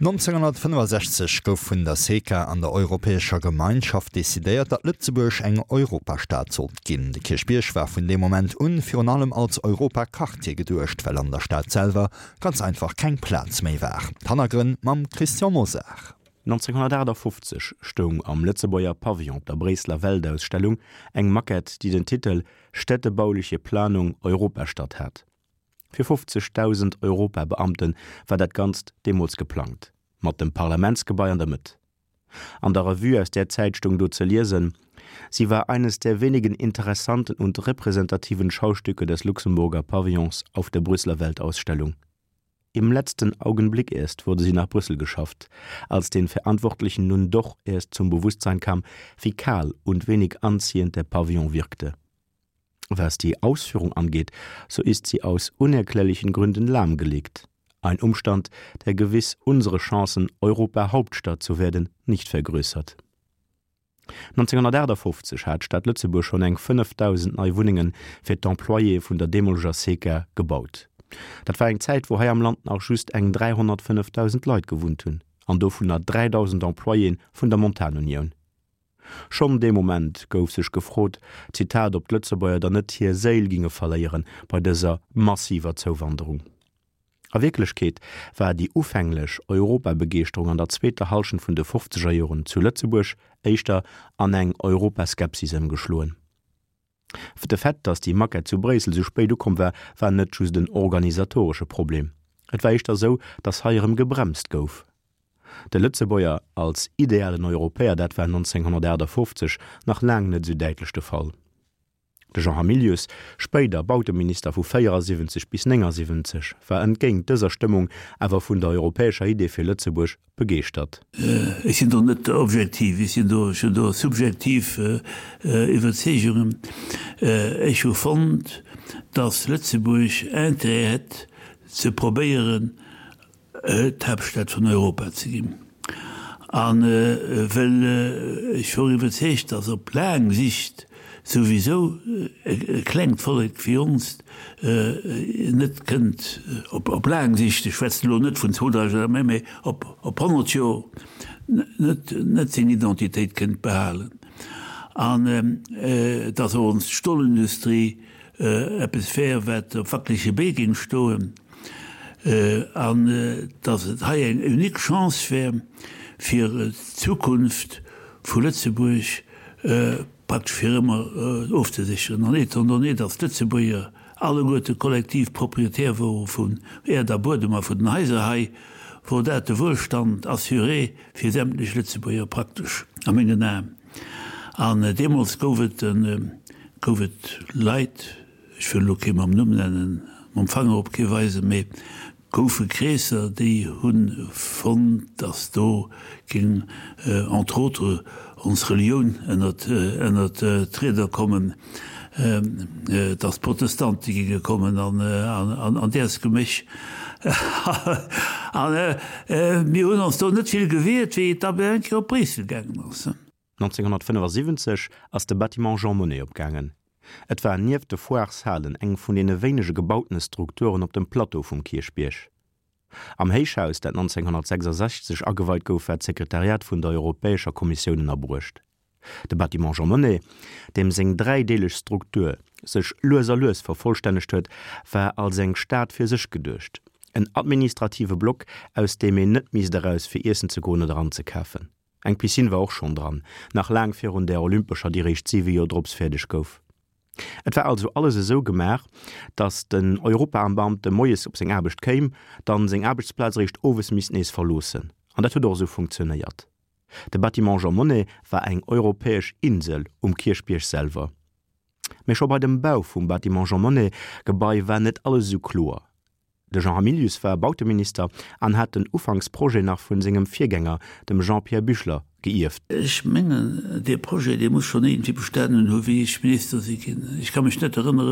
1965 gouf vun der SECA an der Europäescher Gemeinschaft decidéiert, datt Lëtzebuerg eng Europastad sollt ginn. De Kierchbierg war vun deem Moment un virun allem als Europaquartier geduecht, well an der Stad selwer ganz einfach keng Plaz méi war. D'Hannergrënn mam Christian Mosar. 1958 stoung am Lëtzebuerger Pavillon op der Bréisseler Weltausstellung eng Maquette, déi den Titel Städtebauliche Planung Europastadt hat. Fir 50.000 Europabeamte war dat Ganzt deemools geplangt, mat dem Parlamentsgebai an der Mëtt. An der Revue aus där Zäit stoung do ze liesen, Sie war eines der wenigen interessanten und repräsentativen Schaustücke des Luxemburger Pavillons auf der Brüsseler Weltausstellung. Im letzten Augenblick erst wurde sie nach Brüssel geschafft, als den Verantwortlichen nun doch erst zum Bewusstsein kam, wie kahl und wenig anziehend der Pavillon wirkte. Was die Ausführung angeht, so ist sie aus unerklärlichen Gründen lahmgelegt. Ein Umstand, der gewiss unsere Chancen, Europahauptstadt zu werden, nicht vergrößert. 1958 hat d'Stad Lëtzebuerg schonn eng 5.000 nei Wunnenge fir d'Employéë vun der deemoleger SECA gebaut. Dat war eng Zäit, wou hei am Land nach just eng 305.000 Leit gewunnt hunn, an dovunner 3.000 Employéë vun der Montanunioun. Schonn dee Moment gouf sech gefrot, Zitat, ob d'Lëtzebuerger dann net hir Séil ginge verléieren bei dëser massiver Zouwanderung. A Wierklechkeet war déi ufänglech Europabegeeschterung an der zweeter Hallschent vun de fofzeger Joren zu Lëtzebuerg éischter an eng Europaskepsis ëmgeschloen. De Fait, datt déi Maquette zu Bréissel sou spéit ukomm war, war net just en organisatoresche Problem. Et war éischter sou, datt hei erëm gebremst gouf. De Lëtzebuerger als idealen Europäer, dat war 1958 nach laang net sou däitlech de Fall. De Jean Hamilius, spéider Bauteminister vu 74 bis 79, war entgéint dëser Stëmmung awer vun der europäescher Idee fir Lëtzebuerg begeeschtert. Ech sinn do net objektiv, ech sinn do, ech hunn do subjektiv Iwwerzeegungen. Ech hu fonnt, datt Lëtzebuerg Intérêt hätt ze probéieren, d'Haaptstad vun Europa ze ginn. A well ech wor iwwerzeegt, datt op laang Sicht souwisou e klengt Vollek wéi onst net kënnt, op laang Sicht, ech schwätzen elo net vun 2000 Joer, mä op 100 Joer, net seng Identitéit kënnt behalen. An datt och ons Stolindustrie eppes wär, wat op wackelege Bee géing stoen, an datt et hei eng unique Chance wär, fir d'Zukunft vu Lëtzebuerg praktesch fir ëmmer ofzesécheren. An étant donné, datt d'Lëtzebuerger alleguerte kollektiv Propriétaire wore vun Äerd a Buedem a vun den Haiser hei, wor dat de Wuelstand assuré fir sämtlech Lëtzebuerger praktesch, a mengen Aen. An deemools gouf et, gouf et Leit, ech wëll elo kee mam Numm nennen, mam Fanger op kee weisen, mee goufe Kreesser, déi hu fonnt, datt do géing entre autres ons Relioun ënnert, ënnert d'Rieder kommen, datt d'Protestante géinge kommen an, an däers Geméch. A mir hunn ons do net vill gewiert, wéi et da bei eng Kéier op Bréissel gaangen ass. 1975 ass de Bâtiment Jean Monnet opgaangen. Et war nieft de Foireshalen eng vun deene wéinege gebautene Strukturen op dem Plateau vum Kierchbierg. Am Héichhaus, dat 1966 ageweit gouf, war d'Sekretariat vun der Europäescher Kommissioun ënnerbruecht. De Bâtiment Jean Monnet, deem seng dräideeleg Struktur sech lues a lues vervollstännegt huet, war als eng Stad fir sech geduecht, en administrative Block, aus deem een net misst eraus fir iessen ze goen oder anzekafen. Eng Piscine war och schonn dran, nach laang virun där olympescher, déi réischt siwe Joer drops fäerdeg gouf. Et war also alles esou gemaach, datt den Europabeamte moies op seng Aarbecht kéim, dann seng Aarbechtsplaz eréischt owes misst nees verloossen. An dat huet och esou funktionéiert. De Bâtiment Jean Monnet war eng europäesch Insel um Kierchbierg selwer. Mee scho bei dem Bau vum Bâtiment Jean Monnet Gebai war net alles esou kloer. De Jean Hamilius war Bauteminister an hat den Ufanksprojet nach vun sengem Virgänger, dem Jean-Pierre Büchler, geierft. Ech mengen, dee Projet, dee muss schonn iergendwéi bestanen hu wéi ech Minister si ginn. Ech ka mech net erënneren.